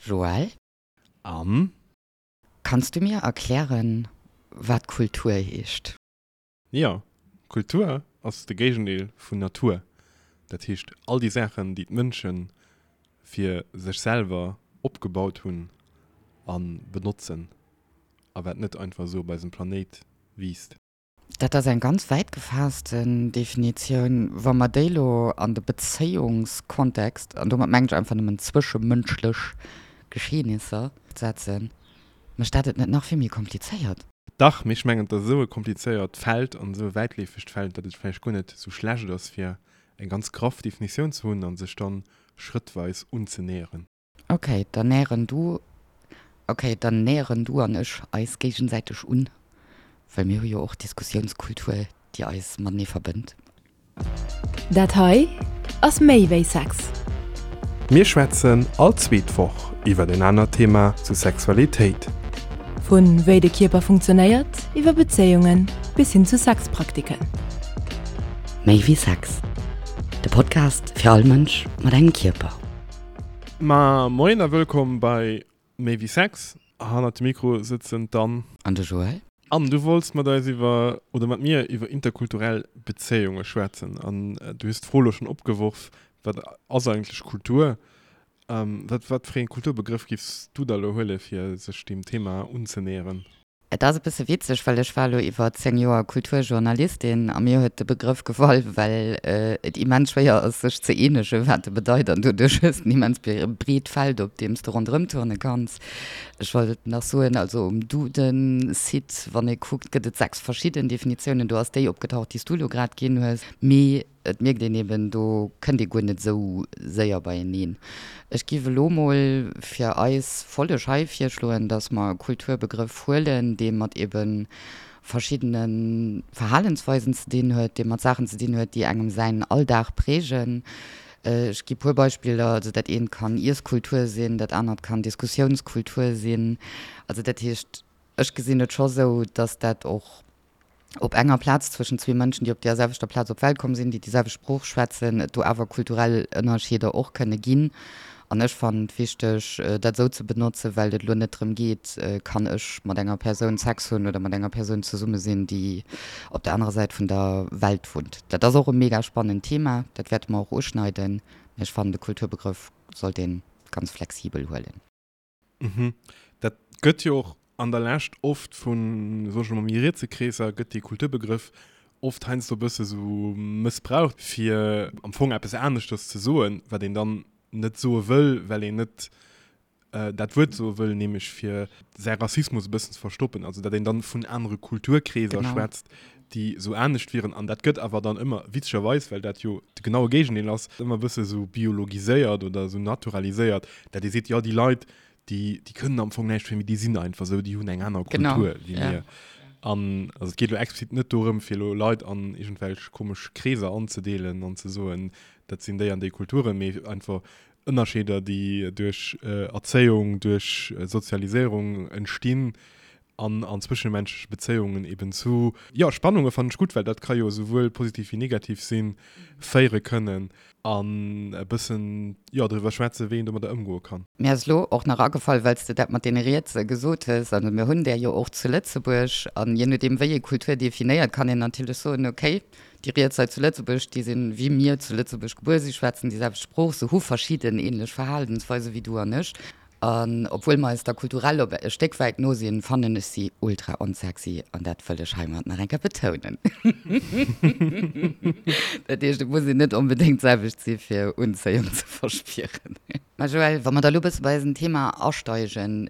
Joël? Anne? Kanns du mir erklären, wat Kultur heescht? Jo, Kultur ass de Géigendeel vun Natur. Dat heescht all déi Saachen, déi d'Mënsche fir sech selwer opgebaut hunn a benotzen a wat net einfach esou op eisem Planéit wiisst. Dat ass eng ganz wäit gefaassten Definitioun. Wa mer déi elo an de Bezéiungskontext, an domat mengen ech einfach nëmmen zwëschemënschlech Geschehnisser, setzen, mécht dat et net nach vill méi komplizéiert? Dach, mee ech mengen, et ass esou e komplizéiert Feld an esou e wäitleefegt Feld, datt et vläicht guer net esou schlecht ass, fir eng ganz graff Definitioun ze hunn a sech dann schrëttweis unzenäheren. Ok, dann näheren du, ok, dann näheren du an ech eis géigesäiteg un, well mir hu jo och Diskussiounskultur, déi eis matenee verbënnt. Dat hei ass méi wéi Sex. Mir schwätzen all zweet Woch iwwer en anert Thema zu Sexualitéit. Vu wéi de Kierper funktionéiert, iwwer Bezéiungen bis hin zu Sexpraktiken. Méi wéi Sex, de Podcast fir all Mënsch mat engem Kierper. Ma moien a wëllkomm bei Méi wéi Sex. Hannert dem Mikro sëtzen d'Anne. An de Joël. Anne, du wollts mat eis iwwer, oder mat mir iwwer interkulturell Bezéiunge schwätzen. An du hues d'Fro elo schonn opgeworf, Wat ass eigentlech Kultur? Wat, wat fir ee Kulturbegrëff giffs du da elo huele fir sech deem Thema unzenäheren? Et ass e bësse witzeg, well ech war elo iwwer 10 Joer Kulturjournalistin a mir huet de Begrëff gefall, well et immens schwéier ass, sech ze eenegen, wat e bedeit an doduerch hues de en immens breet Feld, op deem s de ronderëm turne kanns. Ech wollt nach soen, also um Duden-Site, wann ee kuckt, gëtt et 6 verschidden Definitiounen. Do ass déi opgetaucht, déi s du elo grad ginn hues. Mee Et mierkt een eben, do kënnt ee guer net esou séier beieneen. Ech giff elo mol fir eis Folleg hei virschloen, dass mer e Kulturbegrëff huelen, dee mat eben verschiddene Verhalensweisen ze dinn huet, dee mat Saachen ze dinn huet, déi engem säin Alldag prägen. Ech gi puer Beispiller, also dat eent kann Iesskultur sinn, dat anert kann Diskussiounskultur sinn. Also dat heescht, ech gesinn et scho sou, dass dat och op enger Plaz zwëschen zwee Mënschen, déi op deer selwechter Plaz op d'Welt komm sinn, déi déi selwecht Sprooch schwätzen, et do awer kulturell Ënnerscheeder och kënne ginn. An ech fannen et wichteg, dat esou ze benotzen, well et elo net drëm geet, kann ech mat enger Persoun Sex hunn oder mat enger Persoun zesumme sinn, déi op der anerer Säit vun der Welt wunnt. Dat ass och e mega spannend Thema, dat wäerte mer och uschneiden, mee ech fannen, de Kulturbegrëff sollt ee ganz flexibel huelen. Mhm. Dat gëtt jo och an der Lescht oft vun, soe ech emol, méi rietse Kreesser gëtt dee Kulturbegrëff oft heiansdo e bësse sou mëssbraucht, fir am Fong eppes aneschters ze soen, wat een dann net soe wëll, well een net dat Wuert soe wëll, nämlech fir säi Rassismus e bëssen ze verstoppen. Also datt een dann vun anere Kulturkreeser schwätzt, déi esou anescht wieren. An dat gëtt awer dann ëmmer, witzegerweis, well dat jo de genaue Géigendeel ass, ëmmer e bësse sou biologiséiert oder esou naturaliséiert, dat ee seet, jo déi Leit, déi, déi kënnen am Fong näischt fir, mee déi sinn einfach esou, déi hunn eng aner Kultur wéi mir. An also et geet elo explizit net dorëm, fir elo Leit an iergendwelch komesch Kreeser anzedeelen an ze soen, dat sinn déi an déi Kulturen, mee einfach Ënnerscheeder, déi duerch Erzéiung, duerch Sozialiséierung entstinn, an an zwëschemenschleche Bezéiungen eben zu, jo, Spannunge fannen ech gutt, well dat ka jo esouwuel positiv wéi negativ sinn, féiere kënnen an e bëssen, jo, driwwer schwätzen, wéi een domadder ëmgoe kann. Mir ass elo och nach agefall, well s de dat mat deene Rietse gesot hues, also mir hunn där jo och zu Lëtzebuerg, an je nodeem wéi ee Kultur definéiert, kann een natierlech soen, okay, déi Riets hei zu Lëtzebuerg, déi sinn wéi mir zu Lëtzebuerg gebuer, si schwätzen déi selwecht Sprooch, se hu verschidden ähnlech Verhalensweise wéi du an ech. An obwuel mer eis da kulturell op e Stéck wäit no sinn, fannen ech si ultra onsexy an dat wëll ech heimat nach eng Kéier betounen. Dat heescht, et muss een net onbedéngt d'selwecht si fir Unzéiung ze verspieren. Mä Joël, wa mer da lo e bësse bei eisem Thema asteigen,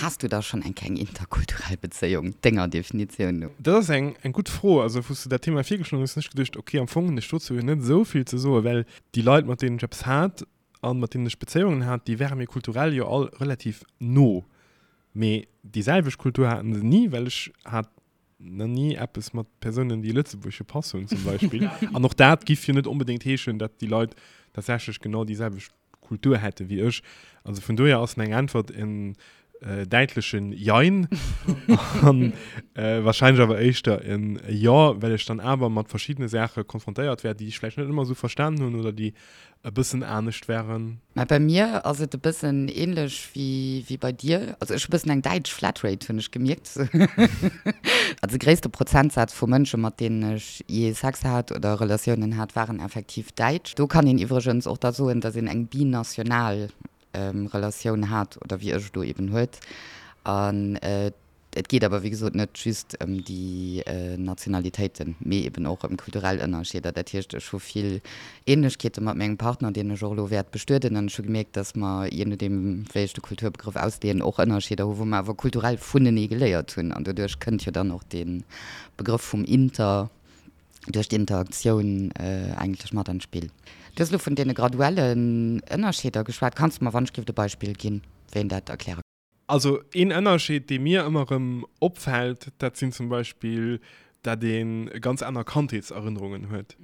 has du da schonn eng Kéier eng interkulturell Bezéiung, denger Definitioun no? Dat ass eng gutt Fro. Also wou s de dat Thema virgeschloen hues, hunn ech geduecht, ok, am Fong hunn ech dozou jo net esou vill ze soen, well déi Leit, mat deenen ech eppes hat, an mat deenen ech Bezéiungen hat, déi ware mir kulturell jo all relativ no. Mee déi selwecht Kultur haten se ni, well ech hat nach ni eppes mat Persounen, déi e lëtzebuergesche Pass hunn zum Beispill. An och dat giff jo net onbedéngt heeschen, datt déi Leit tatsächlech genau déi selwecht Kultur hätte wéi ech. Also vun dohier ass meng Äntwert en. däitlechen Jein an wahrscheinlech awer éischter en Jo, well ech dann awer mat verschiddene Saache konfrontéiert war, déi ech vläicht net ëmmer esou verstanen hunn oder déi e bëssen anescht waren. Mä bei mir ass et e bëssen ähnlech wéi wéi bei dir. Also ech hu bëssen eng däitsch Flatrate, hunn ech gemierkt. Also de gréisste Prozentsaz vu Mënsche mat deenen ech jee Sex hat oder Relatiounen hat, waren effektiv däitsch. Do kann een iwwregens och da soen, datt een eng binational Relatioun hat oder wéi ech elo eben huet. An et geet awer wéi gesot net just ëm déi Nationalitéiten, mee eben och ëm kulturell Ënnerscheeder. Dat heescht, ech hu vill Ähnlechkeete mat mengem Partner, deen ech och elo wäert bestueden. An ech hu gemierkt, datt mer, jee nodeem wéi ech de Kulturbegrëff ausleeën, och Ënnerscheeder hu wou mer awer kulturell vunenee geléiert hunn. An doduerch kënnt jo dann och dee Begrëff vum Inter. duerch d'Interaktioun eigentlech mat an d'Spill. Du hues elo vun deene graduellen Ënnerscheeder geschwat. Kanns de mer wann ech giff e Beispill ginn, wéi een dat erkläre kann? Also een Ënnerscheed, dee mir ëmmer erëm opfält, dat sinn zum Beispill, dat ee ganz aner Kandheetserënnerungen huet.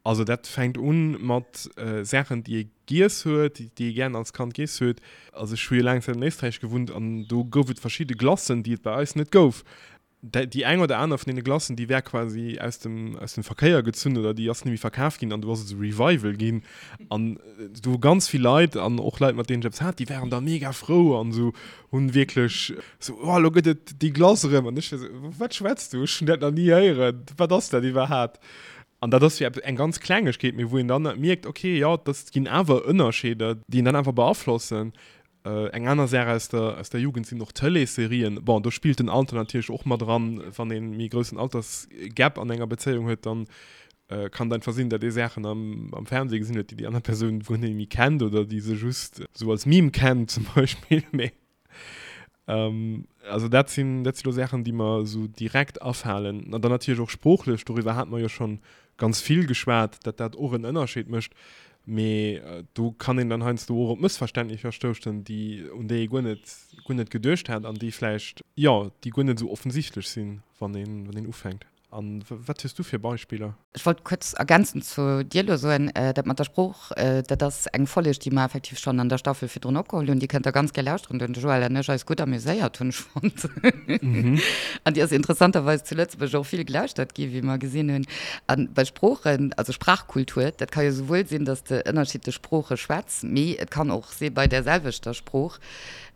Also dat fänkt un mat Saachen, déi ee giess huet, déi ee gären als Kand giess huet. Also ech hu jo laang Zäit an Éisträich gewunnt an do gouf et verschidde Glacen, déi et bei eis net gouf. Déi eng oder aner vun deene Glacen, déi war quasi aus dem, aus dem Verkéier gezunn oder déi ass net méi verkaf ginn an do ass et esou Revival ginn. An do hu ganz vill Leit an och Leit, mat deenen ech eppes hat, déi waren da mega frou an esou hunn wierklech esou, oh elo gëtt et déi Glace erëm. An ech war esou, wat schwätz du, ech hunn dat nach ni héieren, wat ass dat iwwerhaapt? An dat ass jo eppes, eng ganz Klengegkeet, mee wou een dann mierkt, okay, jo, dat ginn awer Ënnerscheeder, déi een dann awer beaflossen. Eng aner Saach aus der, aus der Jugend sinn och Tëleesserien. Bon, do spillt den Alter natierlech och mat eran. Wann ee méi groussen Altersgap an enger Bezéiung huet, dann kann et einfach sinn, datt ee Saachen am, am Fernseh gesinn huet, déi déi aner Persoun guer net méi kennt oder déi se just esou als Meme kennt zum Beispill. Mee also dat sinn, dat si lo Saachen, déi mer esou direkt afalen. An dann natierlech och sproochlech, doriwwer hate mer jo schonn ganz vill geschwat, datt dat och en Ënnerscheed mécht. Mee do kann een dann heiansdo och op Mëssverständnisser stoussen, déi, un déi ee guer net, guer net geduecht hat an déi vläicht, jo, déi guer net esou offensichtlech sinn, wann een, wann een ufänkt. A wat hues du fir Beispiller? Ech wollt kuerz ergänzend zu dir elo soen, dat mat der Sprooch, dat ass eng Folleg, déi mer effektiv schonn an der Staffel virdrun opgeholl hunn. Déi kënnt der ganz gär lauschteren. Do hunn de Joël an ech eis gutt amuséiert, hunn ech fonnt. An déi ass interessanterweis zu Lëtzebuerg och vill gelauschtert gi, wéi mer gesinn hunn. A bei Sproochen, also Sprachkultur, dat ka jo souwuel sinn, datt s de ënnerschiddlech Sprooche schwätz, mee et kann och si bei där selwechter Sprooch,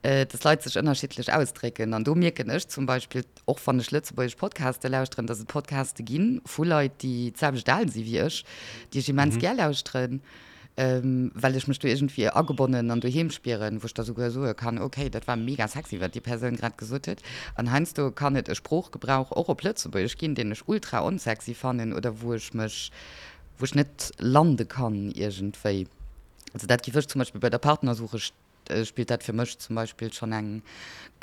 datt Leit sech ënnerschiddlech ausdrécken. An do mierken ech zum Beispill, och wann ech lëtzebuergesch Podcaste lauschteren, datt et Podcaste gi vu Leit, déi d'selwecht al si wéi ech, déi ech immens gär lauschteren. Well ech mech do iergendwéi agebonnen an doheem spieren, wou ech da souguer soe kann, ok, dat war mega sexy, wat déi Persoun grad gesot huet. An heiansdo kann et e Sproochgebrauch och op Lëtzebuergesch ginn, deen ech ultra onsexy fannen oder wou ech mech, wou ech net lande kann iergendwéi. Also dat géif ech zum Beispill bei der Partnersuche spillt dat fir mech zum Beispill schonn eng,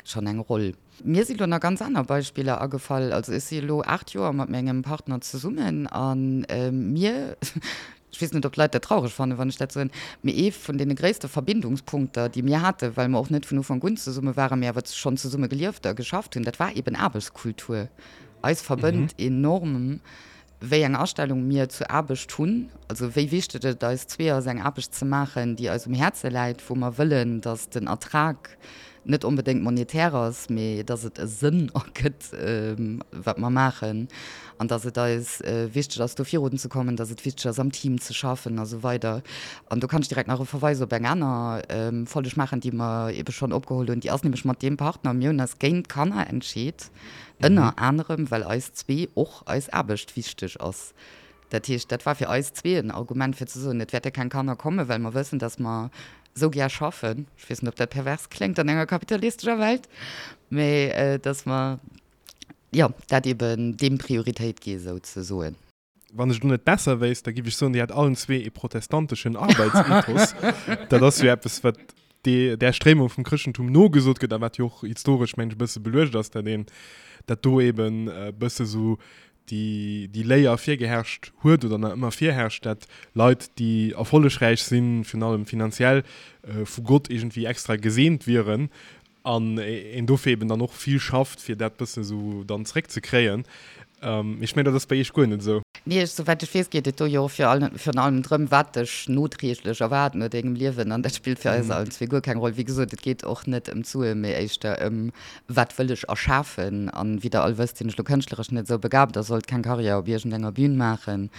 schonn eng Roll. Mir si lo nach ganz aner Beispiller agefall. Also ech si elo 8 Joer mat mengem Partner zesummen a mir, ech weess net ob d'Leit dat traureg fannen, wann ech dat soen, mee ee vun deene gréisste Verbindungspunkter, déi mir haten, well mer och net vun Ufank un zesumme waren, mee awer schonn zesumme gelieft a geschafft hunn, dat war eben Aarbechtskultur. Eis verbënnt enorm wéi eng Astellung mir zur Aarbecht hunn, also wéi wichteg et eis zwee ass, eng Aarbecht ze maachen, déi eis um Häerze läit, wou mer wëllen, datt den Ertrag net onbedéngt monetär ass, mee datt et e Sënn ergëtt, wat mer maachen, an datt et eis wichteg ass, do virunzekommen, datt et wichteg ass, am Team ze schaffen a sou weider. An do kann ech direkt nach e Verweis op eng aner Folleg maachen, déi mer ebe schonn opgeholl hunn. Déi ass nämlech mat deem Partner, mir hunn eis géint Kanner entscheet, ënner anerem, well eis zwee och eis Aarbecht wichteg ass. Dat heescht, dat war fir eis zwee en Argument fir ze soen, et wäerte keng Kanner kommen, well mer wëssen, datt mer esou gär schaffen. Ech weess net, ob dat pervers kléngt an enger kapitalistescher Welt, mä datt mer, jo, dat eben deem Prioritéit gi souzesoen. Wann ech et elo net besser wéisst, da giff ech soen, Dir hätt allen zwee ee protestanteschen Arbeitsethos. Dat ass jo eppes, wat där Stréimung vum Chrëschtentum nogesot gëtt a wat jo och historesch, mengen ech, e bësse beluecht ass, dat een, dat do eben e bësse sou déi, déi Léier virgeherrscht huet oder nach ëmmer virherrscht, dat Leit, déi erfollegräich sinn, virun allem finanziell, vu Gott iergendwéi extra geseent wieren an een dofir eben dann och vill schafft, fir dat bësse sou dann zréckzekréien. Mee ech mengen, dat ass bei Iech guer net esou. Nee, ech, souwäit ech weess, geet et do jo och virun allem drëm, wat dech nodreeglech erwaart no dengem Liewen. An dat spillt fir eis allen zwee guer keng Roll. Wéi gesot, et geet och net ëm d'Suen, mee éischter ëm, wat wëll ech erschafen. An wéi der all wësst, sinn ech lo kënschtleresch net esou begabt a sollt keng Karriär op iergendenger Bühn maachen.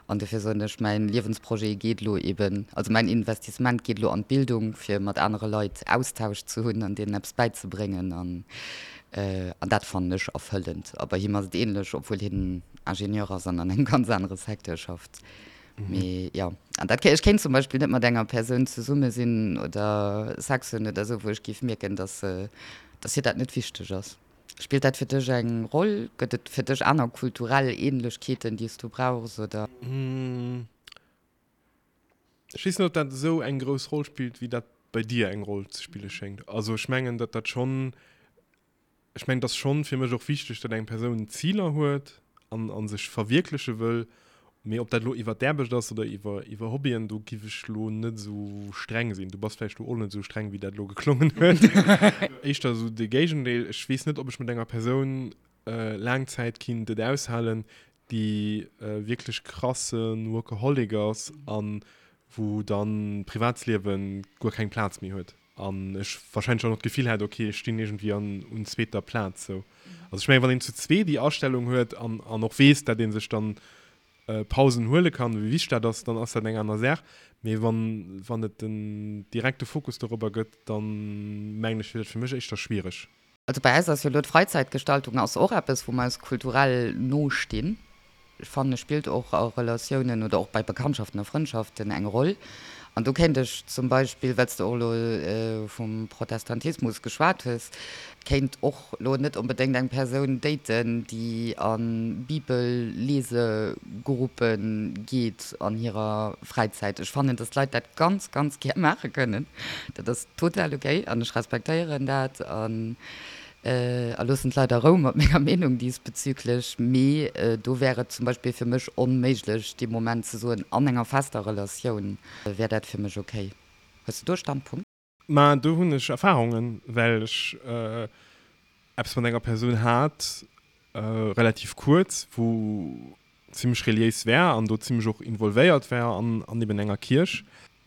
An dofir soen ech, mäin Liewensprojet geet elo eben, also mäin Investissement geet elo an d'Bildung, fir mat anere Leit Austausch ze hunn an deenen eppes bäizebréngen. An An dat fannen ech erfëllend. A bei him ass et ähnlech, obwuel hien Ingenieur ass an an engem ganz anere Secteur schafft. Mee jo, an dat, ech kéint zum Beispill net mat enger Persoun zesumme sinn oder Sex hunn oder esou, wou ech géif mierken, dass, dass hir dat net wichteg ass. Spillt dat fir dech eng Roll? Gëtt et fir dech aner kulturell Ähnlechkeeten, déi s du brauchs, oder? Ech weess net, ob dat esou eng grouss Roll spillt, wéi dat bei dir eng Roll ze spille schéngt. Also ech mengen, datt dat schonn, ech mengen, et ass schonn fir mech och wichteg, datt eng Persoun Ziler huet an a sech verwierkleche wëll. Mee ob dat elo iwwer d'Aarbecht ass oder iwwer iwwer Hobbyen, do giff ech elo net esou streng sinn. Du bass vläicht do och net esou streng, wéi dat elo geklongen huet. Éischter esou de Géigendeel. Ech weess net, ob ech mat enger Persoun laang Zäit kinnt et aushalen, déi wierklech krasse Workaholic ass an wou dann d'Privatsliewen guer keng Plaz méi huet an ech wahrscheinlech och nach d'Gefill hätt, ok ech stinn iergendwéi an un zweeter Plaz sou. Also ech mengen wann een zu zwee déi Astellung huet an an och weess dat ee sech dann Pausen huele kann, wéi wichteg dat ass, dann ass dat eng aner Saach, mee wann wann et den direkte Fokus dorobber gëtt, dann mengen ech wier dat fir mech éischter schwiereg. Also bei eis ass jo elo d'Freizeitgestaltung ass och eppes, wou mer eis kulturell no stinn. Ech fannen, spillt och a Relatiounen oder och bei Bekanntschaften a Frëndschaften eng Roll. An do kéint ech zum Beispill, well s de och elo vum Protestantismus geschwat hues, kéint och elo net onbedéngt eng Persoun daten, déi a Bibellesegruppe geet an hirer Fräizäit. Ech fannen, dass d'Leit dat ganz, ganz gär maache kënnen. Dat ass total ok an ech respektéieren dat an a loossen d'Leit a Rou mat menger Meenung diesbezüglech. Mee do wär et zum Beispill fir mech onméiglech dee Moment ze soen, an enger fester Relatioun wär dat fir mech ok. Hues de do e Standpunkt? Ma do hunn ech Erfahrungen, well ech eppes mat enger Persoun hat, relativ kuerz, wou zimmlech reliéis war an do zimmlech och involvéiert war an eben enger Kierch.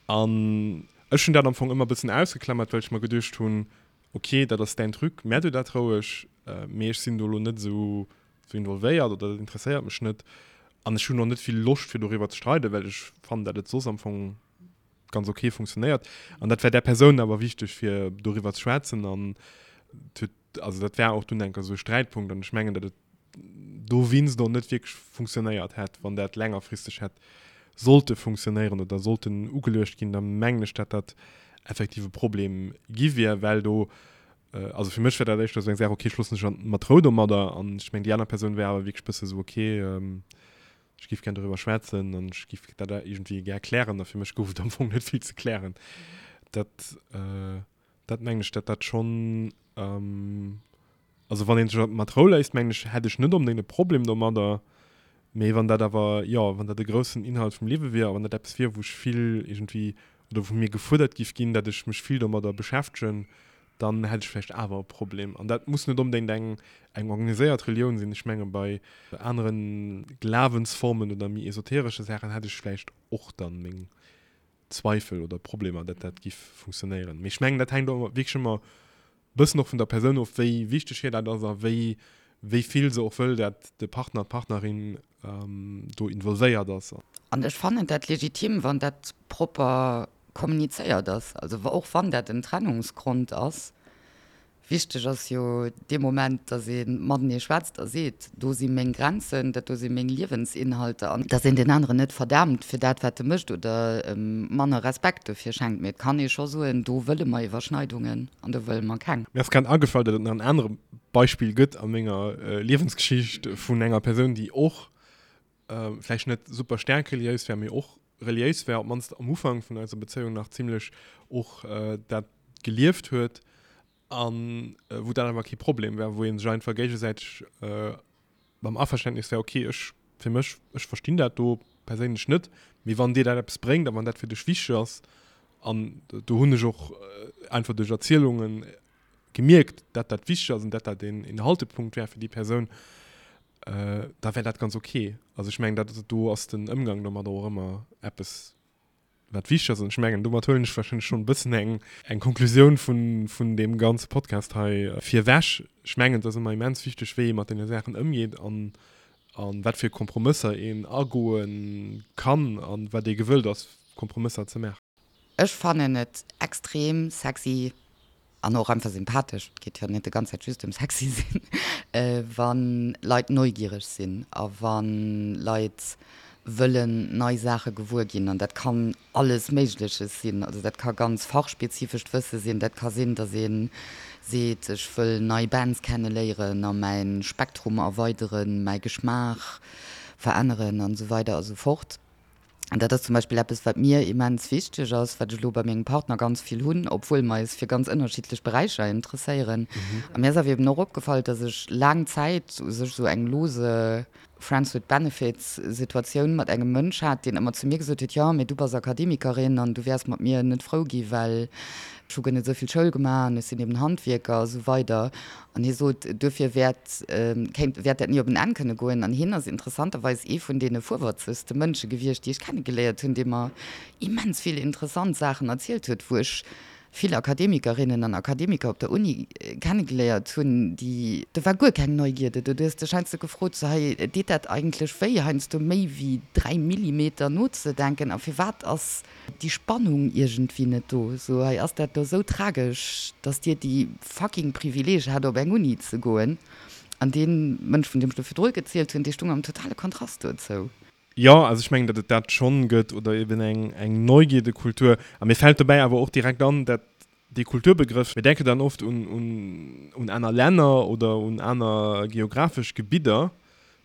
An ech hunn dat am Fong ëmmer e bëssen ausgeklammert, well ech mer geduecht hunn, ok, dat ass däin Truc, mä du dat roueg, mee ech sinn do elo net esou involvéiert oder dat interesséiert mech net. An ech hunn och net vill Loscht, fir doriwwer ze streiden, well ech fannen, dat et soss am Fong ganz ok funktionéiert. An dat war där Persoun awer wichteg, fir doriwwer ze schwätzen. An et huet, also dat war och dunn enker esou e Sträitpunkt. An ech mengen, datt et dowéinst och net wierklech funktionéiert hätt, wann dat längerfristeg hätt sollte funktionéieren oder sollten ugeluecht ginn, da mengen ech, datt dat effektiv e Problem gi wier, well do, also fir mech wär dat éischter esou eng Saach, okay, ech loossen dech an mat Rou domadder an ech mengen, déi aner Persoun wär awer wierklech e bësse sou, okay, ech géif gär doriwwer schwätzen an ech géif dat iergendwéi gär klären a fir mech gouf et am Fong net vill ze klären. Dat. Dat mengen ech, dat dat schonn, also wann een sech mat Rou léisst, mengen ech, hätt ech net onbedéngt e Problem domadder. Mee wann dat awer, jo, wann dat e groussen Inhalt vum Liewe wier a wann dat eppes wier, wou ech vill iergendwéi oder wou mir gefuerdert giff ginn, dat ech mech vill domadder beschäftegen, dann hätt ech vläicht awer e Problem. An dat muss net onbedéngt eng eng organiséiert Relioun sinn. Ech menge bei anere Glawensformen oder méi esoteresche Saachen hätt ech vläicht och dann meng Zweifel oder Problemer, datt dat giff funktionéieren. Mee ech mengen, dat hänkt och wierklech ëmmer e bëssen och vun der Persoun of, wéi wichteg hir dat ass a wéi wéi vill se och wëll, dat de Partner, d'Partnerin do involvéiert ass. An ech fannen dat legitim, wann dat propper kommunizéiert ass. Also och wann dat en Trennungsgrond ass, Wichteg ass jo dee Moment, datt ee matenee schwätzt a seet, do si meng Grenzen, dat do si meng Liewensinhalter an datt een deen aneren net verdaamt fir dat, wat e mécht oder em manner Respekt dofir schenkt. Mee et kann ee scho soen, do wëlle mer Iwwerschneidungen an do wëlle mer keng. Mir ass grad agefall, datt et nach en anere Beispill gëtt a menger Liewensgeschicht vun enger Persoun, déi och vläicht net super staark reliéis war, mee och reliéis war, op d'mannst am Ufank vun eiser Bezéiung nach zimlech och dat gelieft huet an wou dat awer kee Problem war, wou ee sech einfach géigesäiteg mam Averständnis war, okay, ech fir mech, ech verstinn dat do perséinlech net, mee wann dir dat eppes bréngt a wann dat fir dech wichteg ass, an do hunn ech och einfach duerch Erzielunge gemierkt, dat dat wichteg ass an dat dat een Haltepunkt war fir déi Persoun. da wär dat ganz ok. Also ech mengen, dat, do ass den Ëmgang domadder och ëmmer eppes, wat wichteg ass. An ech mengen, domat huelen ech warscheinlech schonn e bëssen eng, eng Konklusioun vun, vun deem ganze Podcast hei virwech. Ech mengen, et ass ëmmer immens wichteg, wéi ee mat deene Saachen ëmgeet an, a wat fir Kompromësser een agoe kann a wat ee gewëllt ass, Kompromësser ze maachen. Ech fannen et extrem sexy an och einfach sympathesch, et geet jo net de ganz Zäit just ëm sexy sinn, wa Leit neugiereg sinn a wa Leit wëllen nei Saache gewuer ginn. An dat kann alles Méigleches sinn, also dat ka ganz fachspezifescht Wësse sinn, dat ka sinn, datt ee seet, ech wëll nei Bands kenneléieren a mäi Spektrum erweideren, mäi Geschmaach veränneren an esou weider a sou fort. An dat ass zum Beispill eppes, wat mir immens wichteg ass, wat ech elo bei mengem Partner ganz vill hunn, obwuel mer eis fir ganz ënnerschiddlech Beräicher interesséieren. A mir ass awer eben och opgefall, dass ech laang Zäit u sech esou eng lose Friends with Benefits Situatioun mat engem Mënsch hat, deen ëmmer zu mir gesot huet, jo, mee du bass Akademikerin an du wäers mat mir net frou gi well ech hu guer net esou vill Schoul gemaach an ech sinn eben Handwierker a sou weider. An hie sot, duerfir wäert, kéint, wäert dat ni op en Enn kënne goen. An hien ass interessanterweis ee vun deene fuerwëtzegste Mënsche gewiescht, déi ech kennegeléiert hunn, dee mer immens vill interessant Saachen erzielt huet, wou ech vill Akademikerinnen an Akademiker op der Uni kennegeléiert hunn, déi, do war guer keng Neugierde do. Du hues dech heiansdo gefrot, sou, hei, deet dat eigentlech wéi, heiansdo méi wéi 3 Millimeter nozedenken? A firwat ass déi Spannung iergendwéi net do. Sou, hei ass dat lo sou tragesch, dass dir déi fucking Privileeg hat op eng Uni ze goen. An dee Mënsch, vun deem ech do virdru gezielt hunn, dee stung am totale Kontrast dozou. Jo, also ech mengen, datt et dat schonn gëtt, oder eben eng, eng Neugierdekultur. A mir fält dobäi awer och direkt an, dat dee Kulturbegrëff, mir denken dann oft un, un, un aner Länner oder un aner geographesch Gebidder,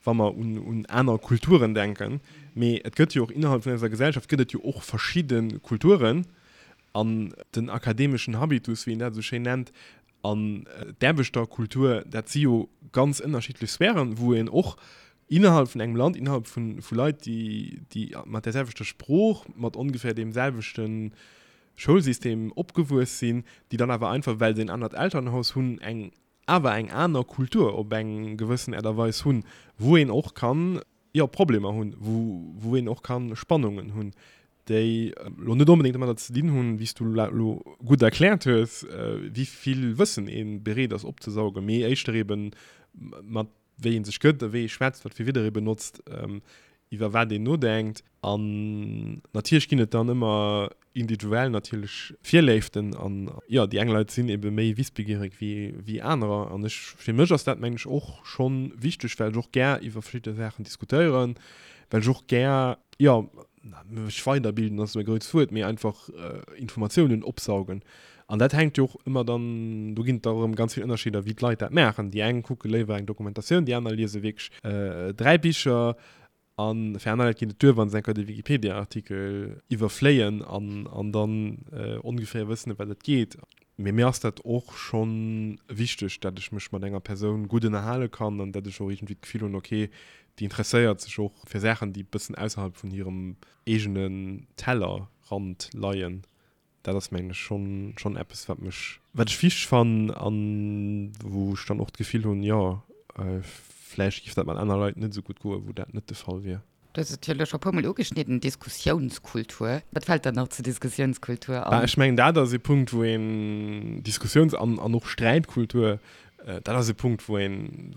wa mer un, un aner Kulturen denken. Mee et gëtt jo och innerhalb vun eiser Gesellschaft gëtt et jo och verschidde Kulturen. An den akademeschen Habitus, wéi een dat esou schéin nennt, an d'Aarbechterkultur, dat si jo ganz ënnerschiddlech Sphären, wou een och innerhalb vun engem Land, innerhalb vu, vu Leit, déi, déi mat där selwechter Sprooch, mat ongeféier deem selwechten Schoulsystem opgewuess sinn, déi dann awer einfach, well se en anert Elternhaus hunn, eng awer eng aner Kultur op eng gewëssen Äert a Weis hunn, wou een och kann, jo, Problemer hunn, wou, wou een och kann Spannungen hunn, déi elo net onbedéngt domadder ze dinn hunn, wéi s du elo gutt erkläert hues, wéi vill Wëssen ee bereet ass opzesaugen, mee éischter eeben mat wéi ee sech gëtt a wéi ee schwätzt, wat fir Wieder ee benotzt, iwwer wat een nodenkt. An natierlech ginn et dann ëmmer individuell natierlech Virléiften an jo, déi eng Leit sinn ebe méi wissbegierig wéi, wéi anerer. An ech, fir mech ass dat mengen ech och schonn wichteg, well ech och gär iwwer verschidde Saachen diskutéieren, well ech och gär, jo, mech weiderbilden ass esou e grousst Wuert, mee einfach Informatiounen opsaugen. An dat hänkt jo och ëmmer dann, do ginn et da erëm ganz vill Ënnerscheeder, wéi d'Leit dat maachen. Déi eng kucke léiwer eng Dokumentatioun, déi aner liese wierklech 3 Bicher. A fir aner Leit geet et duer, wa se eng Kéier de Wikipedia-Artikel iwwerfléien an an dann ongeféier wëssen, ëm wat et geet. Mee mir ass dat och scho wichteg, dat ech mech mat enger Persoun gutt ënnerhale kann an dat ech och iergendwéi d'Gefill hunn, okay, déi interesséiert sech och fir Saachen, déi e bëssen ausserhalb vun hirem eegenen Tellerrand leien. Dat ass, mengen ech, schonn, schonn eppes, wat mech, wat ech wichteg fannen an wou ech dann och d'Gefill hunn, jo, vläicht géif dat mat aner Leit net esou gutt goen, wou dat net de Fall wier. Du hues et jo elo scho e puermol ugeschnidden, Diskussiounskultur. Wat fält der nach zur Diskussiounskultur an? Ech mengen, dat ass e Punkt, wou een Diskussiouns an an och Sträitkultur, dat ass e Punkt, wou een,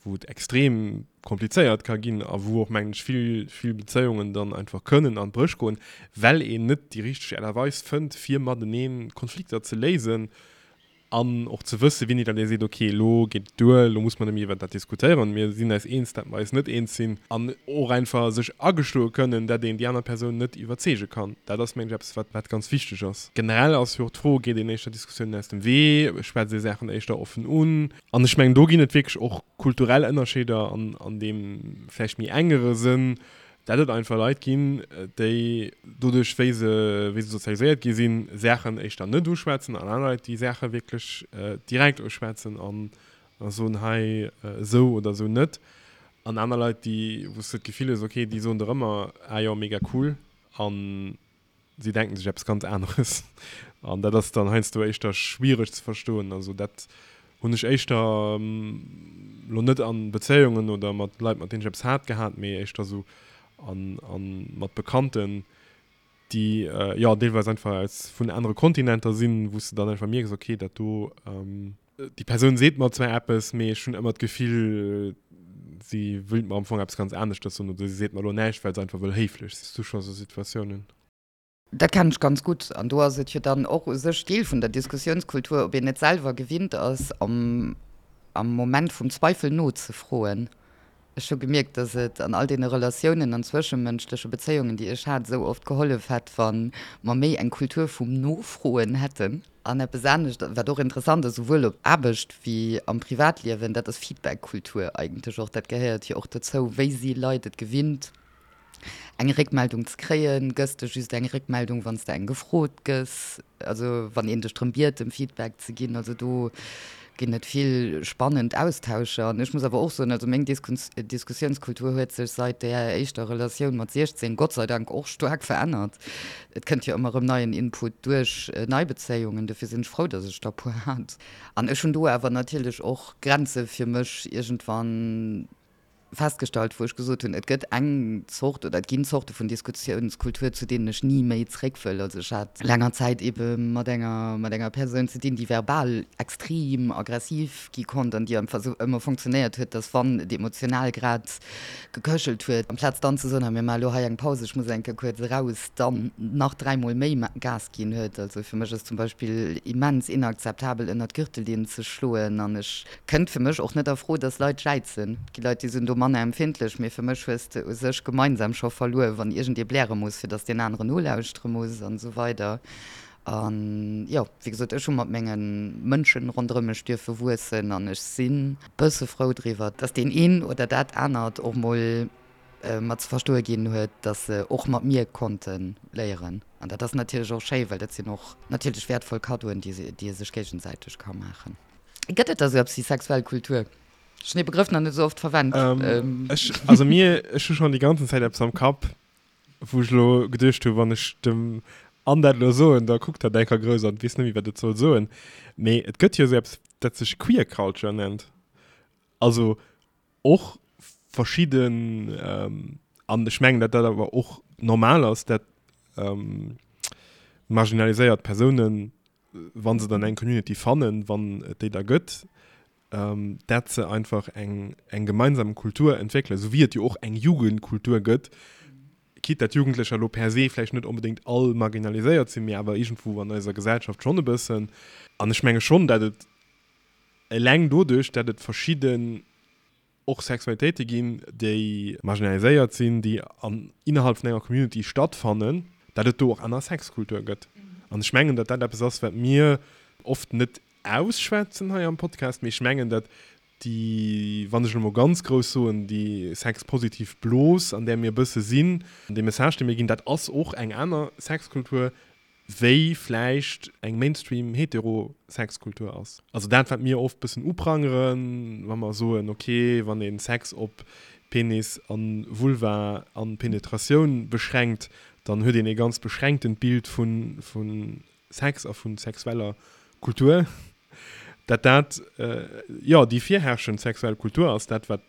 wou et extrem komplizéiert ka ginn a wou och, mengen ech, vill, vill Bezéiungen dann einfach kënnen an d'Bréch goen, well een net déi richteg Aart a Weis fënnt, fir matenee Konflikter ze léisen An och ze wëssen, wéini datt ee seet, ok, elo geet et duer, elo muss mer net méi iwwert dat diskutéieren, mir sinn eis eens, datt mer eis net eens sinn. An och einfach sech agestoe kënnen, datt een déi aner Persoun net iwwerzeege kann. Dat ass, mengen ech, eppes, wat, wat ganz wichteg ass. Generell ass jo och d'Fro, Geet een éischter Diskussiounen aus dem Wee? Schwätzt ee Saachen éischter offen un? An ech mengen, do ginn et wierklech och kulturell Ënnerscheeder an, an deem vläicht méi engere Sënn, Dat et einfach Leit ginn, déi doduerch, wéi se, wéi se sozialiséiert gi sinn, Saachen éischter net uschwätzen an aner Leit, déi Saache wierklech direkt uschwätzen an a soen, hei esou oder esou net. An aner Leit, déi, wou s de d'Gefill hues, okay, déi soen der ëmmer, ah jo, mega cool an si denken sech eppes ganz aneres. An dat ass dann heiansdo éischter schwiereg ze verstoen. Also dat. Hunn ech éischter lo net an Bezéiungen oder mat Leit mat deenen ech eppes hat gehat, mee éischter sou an an mat Bekannten, déi jo deelweis einfach aus vun anere Kontinenter sinn, wou s de dann einfach mierks, okay dat do, déi Persoun seet mer zwar eppes, mee ech hunn ëmmer d'Gefill si wëllt mer am Fong eppes ganz aneschters soen oder si seet mer elo näischt, well se einfach wëll héiflech sinn. Hues du scho sou Situatiounen? Dat kennen ech ganz gutt. An do ass et jo dann och u sech Deel vun der Diskussiounskultur, ob een net selwer gewinnt ass, am Moment vum Zweifel nozefroen. Ech hu gemierkt, dass et an all deene Relatiounen an zwëschemënschleche Bezéiungen, déi ech hat, esou oft gehollef hätt, wa mer méi eng Kultur vum Nofroen hätten. An eppes anescht, wat och interessant ass, souwuel op Aarbecht wéi am Privatliewen, dat ass Feedback-Kultur eigentlech och. Dat gehéiert jo och dozou. Wéi si Leit et gewinnt, eng Réckmeldung ze kréien? Gëss de just eng Réckmeldung, wann s de eng gefrot gëss? Also wann een dech drëm biet, em Feedback ze ginn? Also do ginn et vill spannend Austauscher. An ech muss awer och soen, also meng Diskussiounskultur huet sech seit där éischter Relatioun mat 16 Gott sei Dank och staark verännert. Et kënnt jo ëmmer erëm neien Input duerch nei Bezéiungen, dofir sinn ech frou, datt ech der e puer hat. An ech hunn do awer natierlech och Grenze fir mech iergendwann festgestallt, wou ech gesot hunn, et gëtt eng Zort oder et ginn Zorte vun Diskussiounskultur, zu deenen ech ni méi zréck wëll. Also ech hat laanger Zäit eebe mat enger, mat enger Persoun ze dinn, déi verbal extrem aggressiv gi konnt an déi einfach esou ëmmer funktionéiert huet, dass wann et emotional grad geköchelt huet, amplaz dann ze soen, hei mir maache lo hei eng Paus, ech muss eng Kéier kuerz eraus, dann nach dräimol méi Gas ginn huet. Also fir mech ass zum Beispill immens inakzeptabel ënnert d'Gürtellinn ze schloen an ech Kënnt fir mech och net a Fro, dass Leit jäizen. Et gi Leit, déi sinn do manner empfindlech, mee fir mech hues de u sech gemeinsam scho verluer, wann iergendee bläre muss, fir dass deen aneren nolauschtere muss an esou weider. An jo, wéi gesot, ech hu mat menge Mënschen ronderëm mech dierfe wuessen an ech sinn e bësse frou driwwer, dass deen een oder dat anert och mol mer ze verstoe ginn huet, dass se och mat mir konnte léieren. An dat ass natierlech och schéi, well dat sinn och natierlech wäertvoll Kaddoen, déi ee sech géigesäiteg ka maachen. Gëtt et da sou eppes wéi sexuell Kultur? Ech hunn dee Begrëff nach net esou oft verwennt. Ech, also mir, ech hu schonn déi ganzen Zäit eppes am Kapp, wou ech elo geduecht hu, wann ech dem Anne dat elo soen, da kuckt hatt enker grouss an weess net méi, wat et soll soen. Mee et gëtt jo esou eppes, dat sech Queer Culture nennt. Also och verschidden, an ech mengen, datt dat awer och normal ass, dat marginaliséiert Persounen, wa se dann eng Community fannen, wann et déi da gëtt, dat se einfach eng, eng gemeinsam Kultur entwéckelen, esou wéi et jo och eng Jugendkultur gëtt, quitte dat Jugendlecher elo per se vläicht net onbedéngt all marginaliséiert sinn, mee awer iergendwou an eiser Gesellschaft schonn e bëssen. An ech menge schonn, dat et eleng doduerch, dat et verschidden och Sexualitéite ginn, déi marginaliséiert sinn, déi an innerhalb vun enger Community stattfannen, dat et do och aner Sexkultur gëtt. An ech mengen, datt dat eppes ass, wat mir oft net ausschwätzen hei am Podcast, mee ech mengen, datt déi, wann ech elo mol ganz grouss soen, déi sexpositiv Blos, an där mir e bësse sinn, dee Message, dee mir ginn, dat ass och eng aner Sexkultur, wéi vläicht eng Mainstream hetero Sexkultur ass. Also dat wat mir oft bëssen uprangeren, wa mer soen, ok, wann een Sex op Penis an Vulva an Penetratioun beschränkt, dann huet een ee ganz beschränktent Bild vun vun Sex a vun sexueller Kultur. Dat dat, jo, déi virherrschend sexuell Kultur ass, dat wat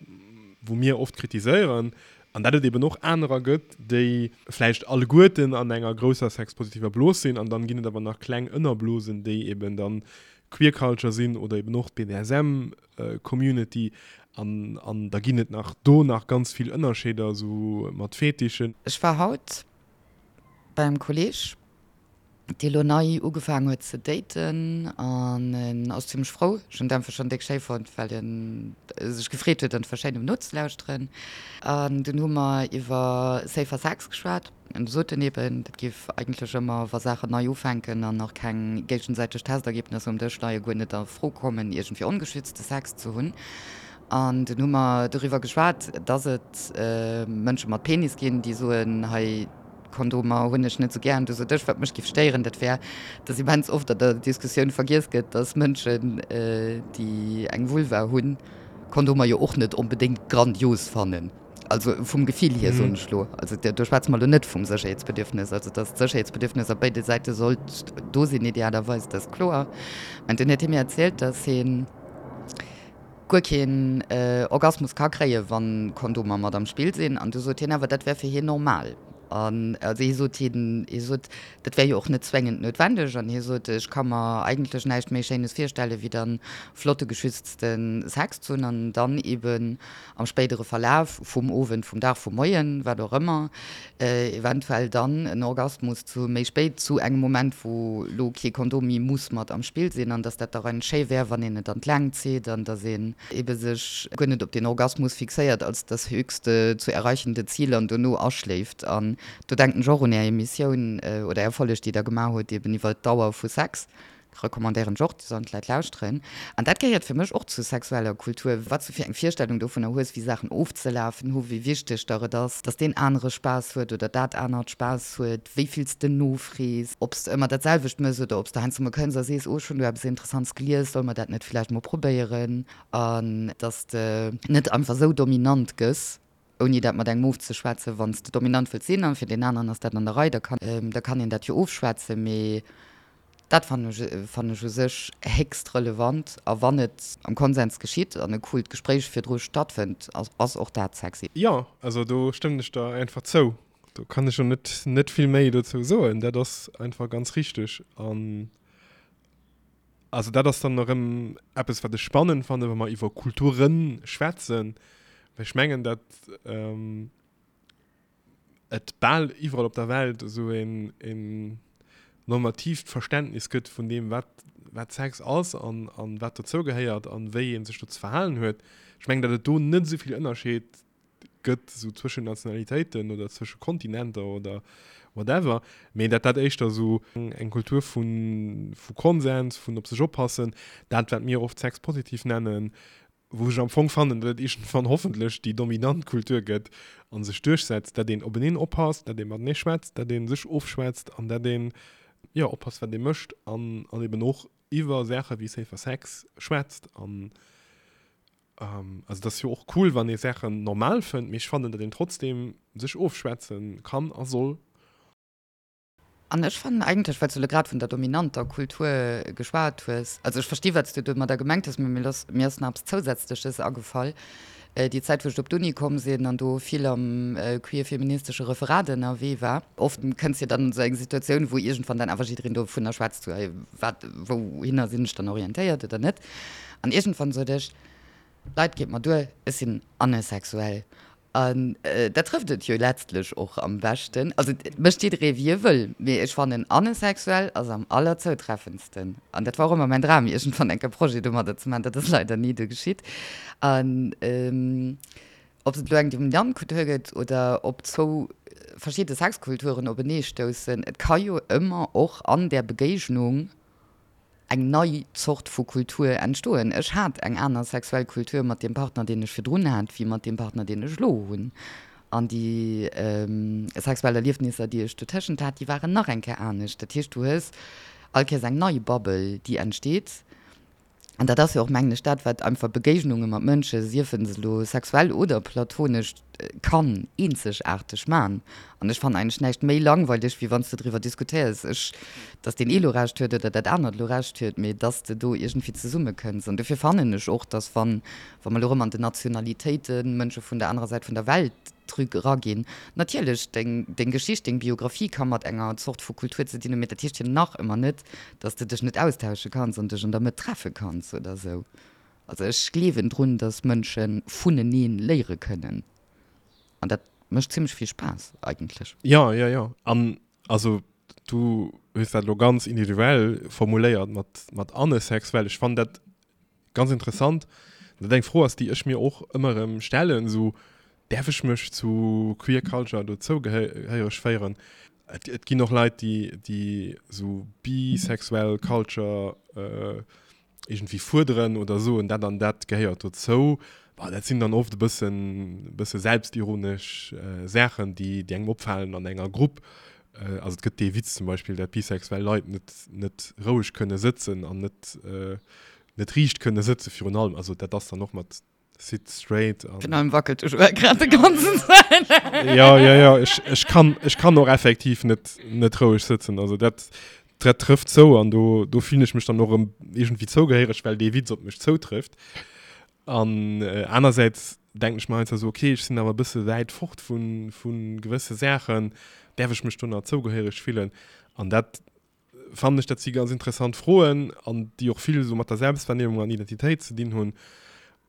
wou mir oft kritiséieren, an dat et eben och anerer gëtt, déi vläicht alleguerten an enger grousser sexpositiver Blos sinn, an dann ginn et awer nach kleng Ënnerblosen, déi eben dann Queer Culture sinn oder eben och d'BDSM Community, an an da ginn et nach do nach ganz vill Ënnerscheeder, esou mat Fetischen. Ech war haut beim Kolleg dee lo nei ugefaangen huet ze daten an en ass zimmlech frou. Ech hunn d'Äntwert schonn déck schéi fonnt, well en sech gefreet huet einfach schéin um nozelauschteren. An dunn hu mer iwwer safer Sex geschwat an du sot en eben, dat géif eigentlech ëmmer, wa Saachen nei ufänken an nach keng géigesäiteg Testergebnisser um Dësch leien, guer net a Fro kommen, iergendwéi ongeschützte Sex ze hunn. An dunn hu mer doriwwer geschwat, dass et Mënsche mat Penis ginn, déi soen, hei, Kondomer hunn ech net sou gären. Du sot ech, wat mech giff stéieren, dat wär, dass immens oft an der Diskussioun vergiess gëtt, dass Mënschen, déi eng Vulva hunn, Kondomer jo och net onbedéngt grandios fannen. Also vum Gefill hier, soen ech lo. Also do schwätze mer lo net vum Sécherheetsbedürfnis. Also dass d'Sécherheetsbedürfnis op béide Säite sollt do sinn, idealerweis, dat ass kloer. Mä dunn huet hie mir erzielt, dass hien. guer keen Orgasmus ka kréien, wann Kondomer mat am Spill sinn. An du sot hien awer, dat wär fir hien normal. An also hie sot, hien, hie sot, dat wär jo och net zwéngend noutwendeg. An hie sot, ech ka mer eigentlech näischt méi Schéines virstellen, wéi dann flotte geschützte Sex ze hunn an dann eben am spéidere Verlaf vum Owend, vum Dag, vum Moien, wat och ëmmer, eventuell dann en Orgasmus zu méi spéit, zu engem Moment, wou lo kee Kondom méi muss mat am Spill sinn, an dass dat da rein schéi wär, wann een et an d'Längt zitt an dass een ebe sech guer net op den Orgasmus fixéiert als das höchste zu erreichende Ziel an dono aschléift. An do denken ech och un Är Emissioun oder Är Folleg, déi Der gemaach hutt eben iwwer d'Dauer vu Sex. Recommandéieren ech och, déi sollen d'Leit lauschteren. An dat gehéiert fir mech och zu sexueller Kultur, wat s du fir eng Virstellung dovunner hues, wéi Saachen ofzelafen hu, wéi wichteg der et ass, dass deen anere Spaass huet oder dat anert Spaass huet, wéi vill s de nofrees, ob s de ëmmer dat selwecht mëss oder ob s de heiansdo mol kënns a sees, oh ech hunn do eppes Interessants gelies, solle mer dat net villäicht mol probéieren? An dass de net einfach esou dominant gëss, ouni dat mat engem ofzeschwätzen, wann s de dominant wëlls sinn an fir deen aneren ass dat an der Rei, da kann, da kann een dat jo ofschwätzen, mee dat fannen ech, fannen ech u sech héchst relevant. A wann et am Konsens geschitt an e coolt Gespréich virdru stattfënnt, ass, ass och dat sexy. Jo, also do stëmmen ech der einfach zou. Do kann ech och net, net vill méi dozou soen. Dat ass einfach ganz richteg. An Also dat ass dann erëm eppes, wat ech spannend fannen, wa mer iwwer Kulture schwätzen, well ech mengen, datt et bal iwwerall op der Welt esou een, een normatiivt Verständnis gëtt vun deem, wat, wat Sex ass an, an wat dozou gehéiert an wéi ee sech do ze verhalen huet. Ech mengen, datt et do net esou vill Ënnerscheed gëtt, esou zwëschen Nationalitéiten oder zwësche Kontinenter oder whatever, mee dat dat éischter esou eng Kultur vu vu Konsens, vun op sech oppassen, dat wat mir oft sexpositiv nennen, wou ech am Fong fannen, datt et iergendwann hoffentlech déi dominant Kultur gëtt a sech duerchsetzt, dat een openeen oppasst, dat ee matenee schwätzt, dat ee sech ofschwätzt an dat een, jo, oppasst wat ee mécht an an eben och iwwer Saache wéi safer Sex schwätzt an Also et ass jo och cool, wann ee Saachen normal fënnt, mee ech fannen, datt een trotzdem sech ofschwätze kann a soll. An ech fannen eigentlech, well s du elo grad vun der dominanter Kultur geschwat hues, also ech versti wat s du domadder gemengt hues, mee mir ass mir ass nach eppes Zousätzleches agefall, Déi Zäit wou ech op d'Uni komm sinn an do vill am queer-feministesche Referat ënnerwee war, oft kënns jo dann an esou eng Situatioun, wou iergendwann dann awer jiddereen dovunner schwätzt, sou, hey, wat, wouhinner sinn ech dann orientéiert oder net? An iergendwann sot ech, Leit, geet mer duer, ech sinn anesexuell. An dat trëfft et jo letztlech och am beschten. Also et mécht jidderee wéi e wëll, mee ech fannen anesexuell ass am allerzoutreffendsten. An dat war och ëmmer mäin Dram, iergendwann enk e Projet domadder ze maachen. Dat ass leider ni du geschitt. An ob et elo eng dominant Kultur gëtt oder ob zwou verschidde Sexkulturen openeestoussen, et ka jo ëmmer och an där Begéignung eng nei Zort vu Kultur entstoen. Ech hat eng aner sexuell Kultur mat deem Partner, deen ech virdrun hat, wéi mat deem Partner, deen ech elo hunn. An déi sexuell Erliefnisser, déi ech dotëschent hat, déi waren nach eng Kéier anescht. Dat heescht, du hues all Kéiers eng nei Bubble, déi entsteet. An dat ass jo och, mengen ech, dat, wat einfach Begéignunge mat Mënsche, siefe se elo sexuell oder platonesch, kann eenzegaarteg man. An ech fannen eigentlech näischt méi langweileg, wéi wann s de driwwer diskutéiers, ech, dass deen ee lo Recht huet oder dat anert lo Recht huet, mee dass de do iergendwéi zesummekënns. An dofir fannen ech och, dass wann, wa mer elo erëm an den Nationalitéiten, Mënsche vun der anerer Säit vun der Welt drü eraginn, natierlech deng, deng Geschicht, deng Biographie ka mat enger Zort vu Kultur ze dinn hunn, mee dat heescht jo nach ëmmer net, dass de dech net austausche kanns an dech an der Mëtt treffe kanns oder esou. Also ech gleewen drun, dass Mënsche vuneneen léiere kënnen. An dat mécht zimmlech vill Spaass eigentlech. Jo, jo, jo. An also du hues dat elo ganz individuell formuléiert mat, mat anesexuell. Ech fannen dat ganz interessant, dat eng Fro ass, déi ech mir och ëmmer erëm stellen, esou, Däerf ech mech zu Queer Culture dozou gehéiereg féieren? Et, et ginn och Leit, déi, déi esou bisexuell Culture iergendwéi fuerderen oder soen, dat an dat gehéiert dozou. Bon, dat sinn dann oft e bëssen, e bësse selbstironesch Saachen, déi, déi engem opfalen an enger Grupp. Also et gëtt dee Witz zum Beispill, dat bisexuell Leit net, net roueg kënne sëtzen an net, net riicht kënne sëtze virun allem. Also dat ass dann och mat Sit straight an. Virun allem wackelt de Joël grad de ganzen Zäit. Ja, ja, ja, ech, ech kann, ech kann och effektiv net, net roueg sëtzen. Also dat, dat trëfft zou an do, do fillen ech mech dann och erëm iergendwéi zougehéiereg, well dee Witz op mech zoutrëfft. An anersäits denken ech mer heiansdo esou, okay, ech sinn awer e bësse wäit fort vu gewësse Saachen, däerf ech mech do nach zougehéiereg fillen? An dat fannen ech, dat si ganz interessant Froen an déi och vill esou mat der Selbstwahrnehmung an Identitéit ze dinn hunn.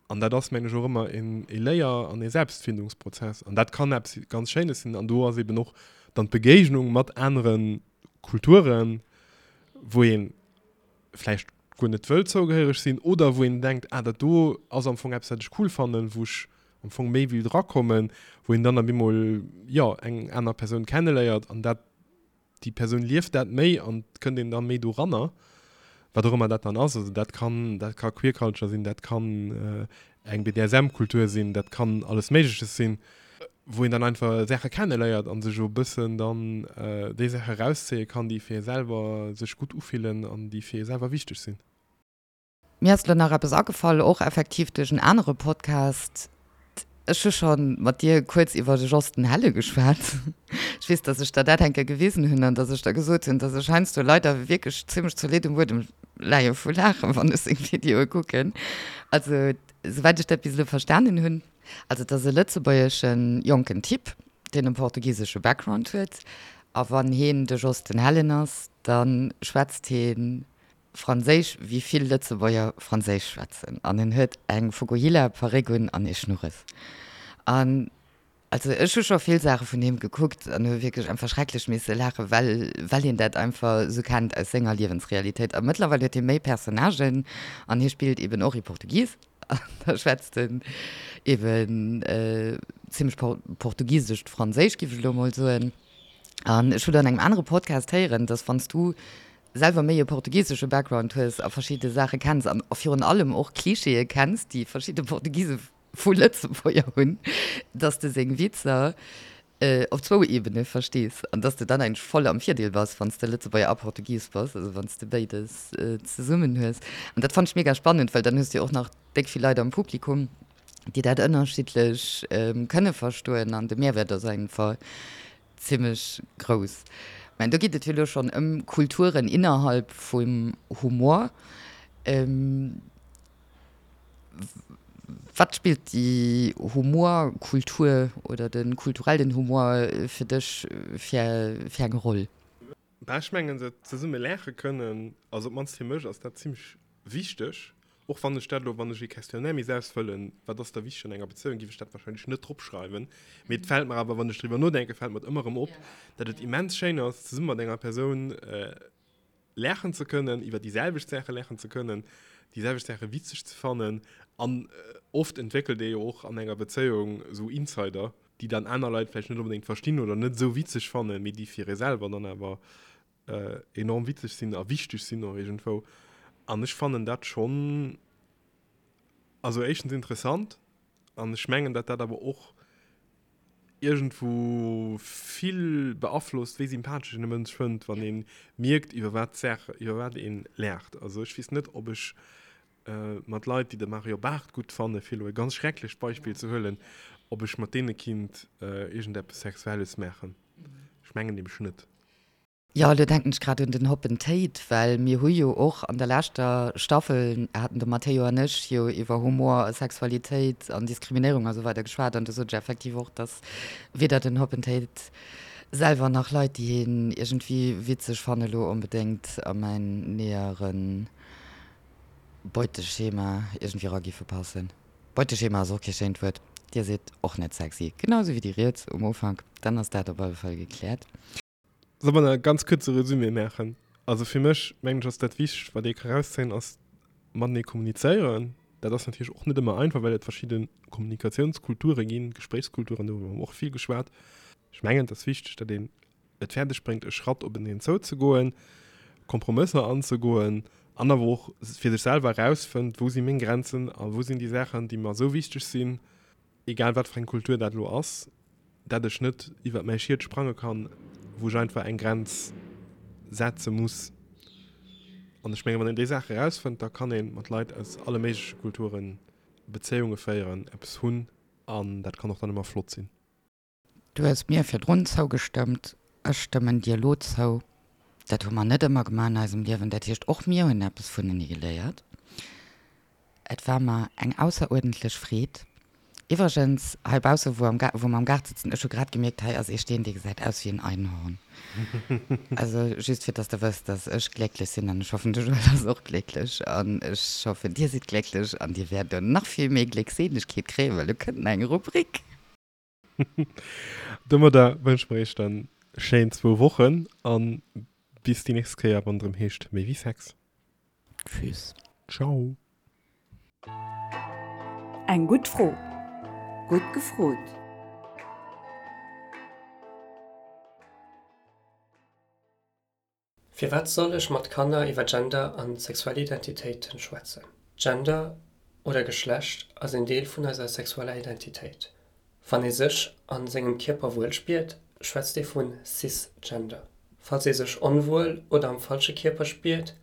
An dat ass, mengen ech, och ëmmer e Léier an e Selbstfindungsprozess. An dat kann eppes ganz Schéines sinn. An do ass eben och dann d'Begéignung mat anere Kulturen, wou ee vläicht guer net wëll zougehéiereg sinn oder wou een denkt, ah dat do ass am Fong eppes, wat ech cool fannen, wou ech am Fong méi wéilt erakommen, wou een dann op eemol, jo, eng aner Persoun kenneléiert an dat déi Persoun lieft dat méi an et kënnt een da méi doranner, wat och ëmmer dat dann ass. Also dat kann, dat ka Queer Culture sinn, dat kann eng BDSM-Kultur sinn, dat kann alles Méigleches sinn, wou een dann einfach Saache kenneléiert a sech e bëssen dann déi Saache erauszéie kann, déi fir ee selwer sech gutt ufillen an déi fir ee selwer wichteg sinn. Mir ass elo nach eppes agefall, och effektiv duerch en anere Podcast. Ech hu scho mat dir kuerz iwwer de Jos den Helle geschwat. Ech weess, dass ech der dat eng Kéier gewisen hunn an dass ech der gesot hunn, dass ech heiansdo leider wierklech zimmlech zolidd um Buedem leie vu Laachen, wann ech seng Videoe kucken. Also, souwäit ech dat bis elo verstanen hunn, also et ass e lëtzebuergesche jonken Typ, deen e portugisesche Background huet, a wann heen de Jos den Hellen ass, da schwätzt heen Franséisch wéi vill Lëtzebuerger Franséisch schwätzen an en huet eng Fukuhila Paréck un an ee Schnurres. An also ech hu scho vill Saache vun him gekuckt an hu wierklech einfach schrecklech misse laachen, well well een dat einfach esou kennt aus senger Liewensrealitéit. A mëttlerweil huet hie méi Personnagen an hie spillt eben och ee Portugis an da schwätzt en eben zimmlech portugisescht Franséisch, géif ech elo emol soen. An ech hunn an engem anere Podcast héieren, dass wann s du selwer méi e portugisesche Background hues a verschidde Saache kenns an virun allem och Klischeeë kenns, déi verschidde Portugise vu Lëtzebuerger hunn, dass de seng Witzer op zwou Ebene verstees an dass de dann eigentlech voll am Virdeel bass, wann s de Lëtzebuerger a Portugis bass, also wann s de béides zesummen hues. An dat fannt ech mega spannend, well dann hues de jo och nach déck vill Leit am Publikum, déi dat ënnerschiddlech kënne verstoen an de Mehrwert ass einfach Zimmlech grouss. Mä do geet et jo elo schonn ëm Kulturen innerhalb vum Humor. Wat spillt déi Humorkultur oder de kulturellen Humor fir dech fir eng Roll? Bah, ech mengen, se zesumme laache kënnen, also op d'mannst fir mech ass dat zimmlech wichteg. Och wann ech dat elo, wann ech ee Questionnaire misst ausfëllen, wat ass da wichteg an enger Bezéiung, géif ech dat wahrscheinlech net dropschreiwen. Mee et fält mer awer, wann ech driwwer nodenken, fält mer et ëmmer erëm op, datt et immens schéin ass, zesumme mat enger Persoun laachen ze kënnen, iwwer déi selwecht Saache laachen ze kënnen, déi selwecht Saache witzeg ze fannen. An oft entwéckelt ee jo och an enger Bezéiung esou Insider, déi dann aner Leit vläicht net onbedéngt verstinn oder net esou witzeg fannen, mee déi fir ee selwer dann awer enorm witzeg sinn a wichteg sinn och iergendwou. An ech fannen dat schonn, also éischtens interessant an ech mengen, datt dat awer och iergendwou vill beaflosst, wéi sympathesch een e Mënsch fënnt, wann ee mierkt, iwwer wat d'Saach, iwwer wat ee laacht. Also ech weess net, ob ech mat Leit, déi de Mario Barth gutt fannen, fir elo e ganz schrecklecht Beispill ze huelen, ob ech mat deene kinnt iergendeppes Sexuelles maachen. Ech mengen nämlech net. Jo, elo denken ech grad un den Hoppen Théid, well mir hu jo och an der leschter Staffel, haten de Matteo an ech jo iwwer Humor a Sexualitéit an Diskriminéierung a sou weider geschwat an do sot ech effektiv och, dass weder den Hoppen Théid selwer nach Leit, déi hien iergendwéi witzeg fannen, elo onbedéngt a mäin nähere Beuteschema iergendwéi era giffe passen. Beuteschema ass och kee schéint Wuert. Dir sidd och net sexy, genau sou wéi déi riets um Ufank. Dann ass dat op alle Fall gekläert. Soll mer e ganz kuerze Resumé maachen? Also fir mech, mengen ech, ass dat Wichtegst, wat ee ka rauszéien, ass matenee kommunizéieren. Dat ass natierlech och net ëmmer einfach, well et verschidde Kommunikatiounskulture ginn, Gespréichskulturen, do hu mer och vill geschwat. Ech mengen, et ass wichteg, datt een et fäerdeg bréngt, e Schratt openeen zouzegoen, Kompromësser anzegoen an awer och fir sech selwer erausfënnt, wou si meng Grenzen a wou sinn déi Saachen, déi mer esou wichteg sinn, egal wat fir eng Kultur dat elo ass, dat ech net iwwert mäi Schiet sprange kann, wou ech einfach eng Grenz setze muss. An ech mengen, wann een déi Saache erausfënnt, da kann ee mat Leit aus alle méigleche Kulture Bezéiunge féieren, eppes hunn an dat kann och dann ëmmer flott sinn. Du hues mir virdrun zougestëmmt, ech stëmmen dir elo zou. Dat hu mer net ëmmer gemaach an eisem Liewen. Dat heescht, och mir hunn eppes vunenee geléiert. Et war mer eng ausseruerdentlech Freed. Iwwregens, heibausse wou am wou mer am Gaart sëtzen, ech hu grad gemierkt, hei ass ee Steen, dee gesäit aus wéi en Einhorn. Also just fir dass der wësst, dass ech glécklech sinn an ech hoffen, de Joël ass och glécklech an ech hoffen, dir sidd glécklech an dir wäert elo nach vill méi Gléckseelegkeet kréien, well elo kënnt nach eng Rubrik. Domadder wënsche mer iech dann schéin zwou Wochen an bis déi nächst Kéier, wann et erëm heescht Méi wéi Sex. Tschüss. Ciao. Eng gutt Fro. Gutt gefrot. Firwat soll ech mat Kanner iwwer Gender an sexuell Identitéiten schwätzen? Gender oder Geschlecht ass een Deel vun eiser sexueller Identitéit. Wann ee sech a sengem Kierper wuel spiert, schwätzt ee vu Cisgender. Falls ee sech onwuel oder am falsche Kierper spiert,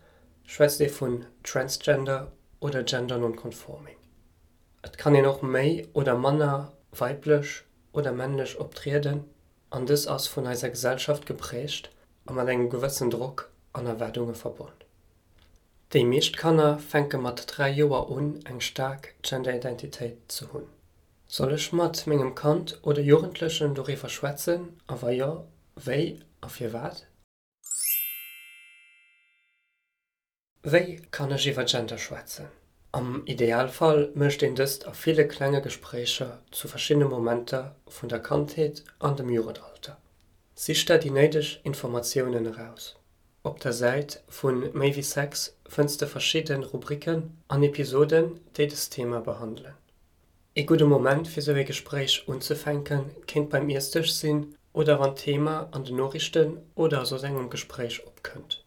schwätzt ee vun Transgender oder Gender non-conforming. Et kann een och méi oder manner weiblech oder männlech optrieden an dës ass vun eiser Gesellschaft geprägt a mat engem gewëssen Drock an Erwaardunge verbonn. Déi meescht Kanner fänke mat 3 Joer un eng staark Genderidentitéit ze hunn. Soll ech mat mengem Kand oder Jugendlechen doriwwer schwätzen a wa jo, wéi a firwat? Wéi kann ech iwwer Gender schwätzen? Am Idealfall mécht een dëst a ville klenge Gespréicher zu verschiddene Momenter vun der Kandheet an dem Jugendalter. Sich der déi néideg Informatiounen eraus. Op der Säit vu Méi wéi Sex fënns de verschidde Rubriken an Episoden, déi dëst Thema behandelen. Ee gudde Moment fir sou ee Gespréich unzefänken kéint beim Iessdësch sinn oder wann d'Thema an den Noriichten oder a soss engem Gespréich opkënnt.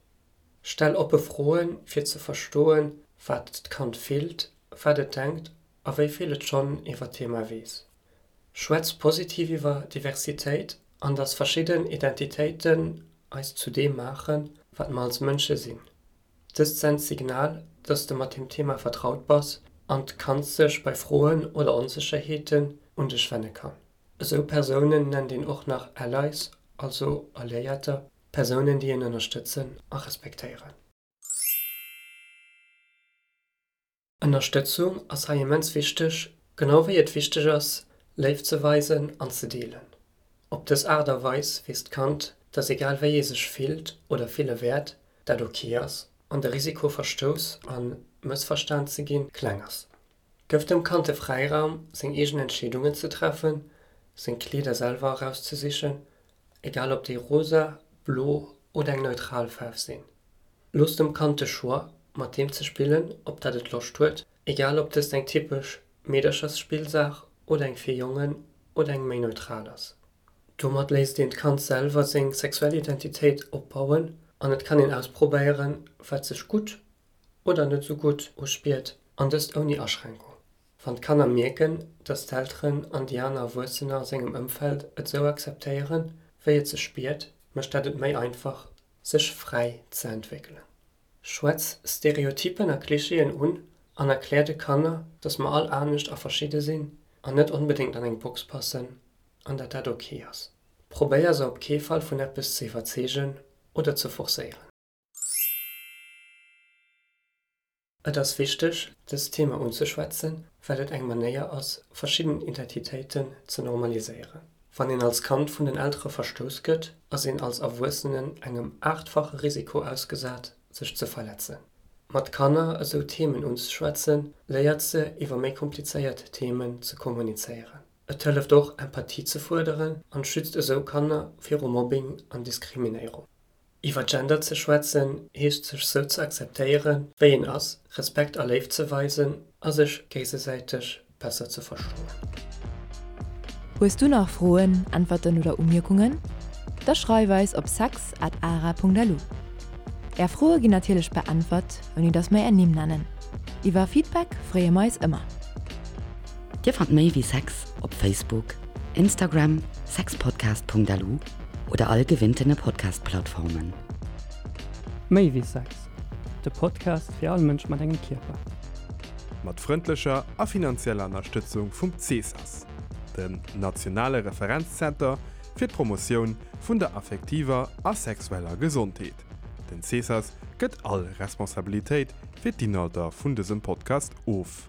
Stell oppe Froen, fir ze verstoen, wat d'Kand fillt, wat et denkt a wéi vill et schonn iwwer d'Thema weess. Schwätz positiv iwwer Diversitéit an dass verschidden Identitéiten eis zu deem maachen, wat mer als Mënsche sinn. Dëst sent d'Signal, dass de mat dem Thema vertraut bass an d'Kand sech bei Froen oder Onsécherheeten un dech wenne kann. Esou Persounen nennt een och nach Allies, also Alliéierter, Persounen déi een ënnerstëtzen a respektéieren. Ënnerstëtzung ass hei immens wichteg, genau wéi et wichteg ass, Léift ze weisen an ze deelen. Op dës Aart a Weis weess d'Kand, dass egal wéi ee sech fillt oder fille wäert, dat ok ass an de Risiko verstouss a mëssverstan ze ginn, kleng ass. Gëff dem Kand de Fräiraum, seng eegen Entscheedungen ze treffen, seng Kleeder selwer erauszesichen, egal ob déi rosa, blo oder eng neutral Faarf sinn. Looss dem Kand de Choix, mat deem ze spillen, op dat et Loscht huet, egal ob dëst eng typesch Meederchersspillsaach oder eng fir Jongen oder eng méi neutral ass. Domat léisst een d'Kand selwer seng sexuell Identitéit opbauen an et kann een ausprobéieren, wat sech gutt oder net sou gutt uspiert, an dëst ouni Aschränkung. Wann d'Kanner mierken, dass d'Elteren an déi aner Erwuessener a sengem Ëmfeld et sou akzeptéieren, wéi et sech spiert, mécht dat et méi einfach, sech fräi ze entwéckelen. Schwätz Stereotypen a Klischeeën un an erklär de Kanner, dass mer all anescht a verschidde sinn an net onbedéngt an eng Box passen an dat dat ok ass. Probéier se op kee Fall vun eppes ze iwwerzeegen oder ze forcéieren. Et ass wichteg, dëst Thema unzeschwätzen, well et eng Manéier ass, verschidden Identitéiten ze normaliséieren. Wann een als Kand vun den Eltere verstouss gëtt, ass een als Erwuessenen engem aachtfache Risiko ausgesat, sech ze verletzen. Mat Kanner esou Themen unzeschwätzen, léiert se, iwwer méi komplizéiert Themen ze kommunizéieren. Et hëlleft och, Empathie ze fuerderen an schützt esou Kanner viru Mobbing an Diskriminéierung. Iwwer Gender ze schwätzen, heescht sech sou ze akzeptéieren, wéi een ass, Respekt a Léift ze weisen a sech géigesäiteg besser ze verstoen. Hues du nach Froen, Äntwerten oder Umierkungen? Da schreif eis op sex at ara.lu. Är Froe ginn natierlech beäntwert, ouni dass mer är Nimm nennen. Iwwer Feedback freeë mer eis ëmmer. Dir fannt méi wéi Sex op Facebook, Instagram, sexpodcast.lu oder all gewinntene Podcast-Plattformen. Méi wéi Sex, de Podcast fir all Mënsch mat engem Kierper. Mat frëndlecher a finanzieller Ënnerstëtzung vum CSAS, dem nationale Referenzzenter fir d'Promotioun vun der affektiver a sexueller Gesondheet. Den CSAS gëtt all Responsabilitéit fir d'Inhalter vun dësem Podcast of.